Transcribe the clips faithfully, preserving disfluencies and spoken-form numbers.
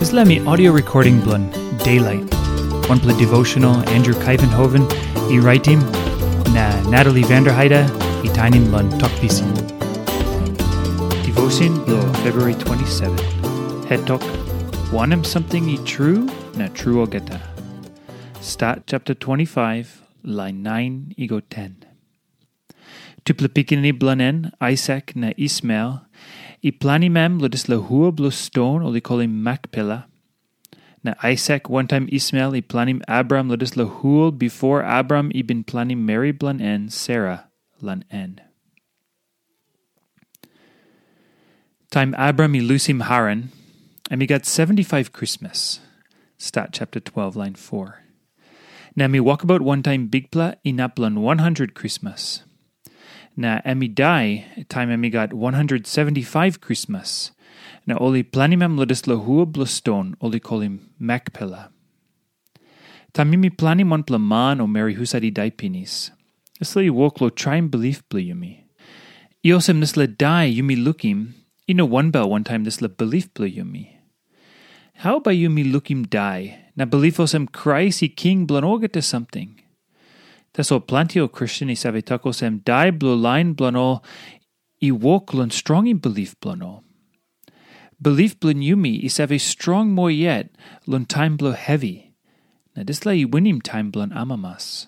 Dispela mi audio recording bilong Daylight, wanpela devotional Andrew Kuyvenhoven i raitim, na Natalie Vanderheide i tainim long Tok Pisin. Devotion bilong February twenty-seven. Het tok, wanem samting i tru na tru olgeta. Stat chapter twenty-five, lain nine i go ten. Tupela pikinini bilong en, Aisak na Ismael, i planim em long dispela hua bilong ston ol i kolim Makpela. Na Aisak wantaim Ismael i planim Abraham long dispela hua bipo Abraham i bin planim meri bilong en Sera long en. Taim Abraham i lusim Haran, em i gat seventy-five krismas. Stat chapter twelve, lain four. Na em i wokabaut wantaim Bikpela inap long one hundred krismas. Na em i dai taim em i gat one hundred seventy-five krismas. Na ol i planim em long dispela hua bilong ston ol i kolim Makpela. Taim yumi planim wanpela man o meri husat i dai pinis, dispela i wok long traim bilip bilong yumi. I olsem dispela dai yumi lukim, i no wanbel wantaim dispela bilip bilong yumi. Hau bai yumi lukim dai na bilip olsem Krais i king bilong olgeta samting? Tasol planti ol Kristen i save tok olsem dai bilong lain bilong ol i wok long strongim bilip bilong ol. Bilip bilong yumi i save strong moa yet long taim bilong hevi, na dispela i winim taim bilong amamas.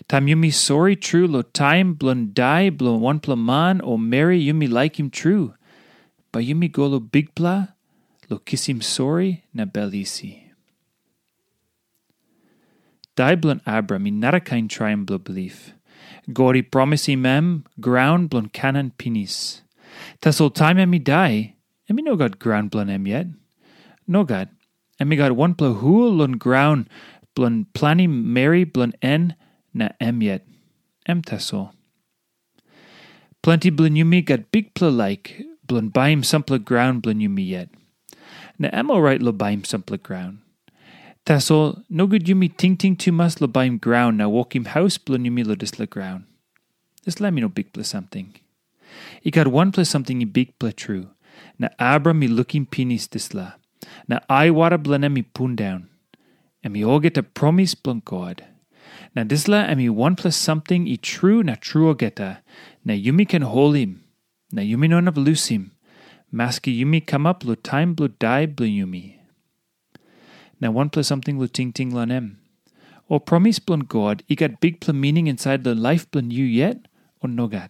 Taim yumi sori tru long taim bilong dai bilong wanpela man o meri yumi laikim tru, bai yumi go long Bikpela long kisim sori na bel isi. Dai bilong Abraham i narakain traim bilong bilip. God i promisim em graun bilong Kanan pinis. Tasol taim em i dai, em i no gat graun bilong em yet. Nogat, em i gat wanpela hua long graun bilong planim meri bilong en na em yet. Em tasol. Planti bilong yumi gat bikpela laik bilong baim sampela graun bilong yumi yet. Na em orait long baim sampela graun. Tasol nogut yumi tingting tumas long baim graun na wokim haus bilong yumi long dispela graun. Dispela em i no bikpela samting. I gat wanpela samting i bikpela tru, na Abraham i lukim pinis dispela, na aiwara bilong em i pundaun. Em i olgeta promis bilong God. Na dispela em i wanpela samting i tru na tru olgeta, na yumi ken holim, na yumi no inap lusim, maski yumi kamap long taim bilong dai bilong yumi. Na wanpela samting long tingting long em. Ol promis bilong God i gat bikpela mining insait long laip bilong yu yet, o nogat?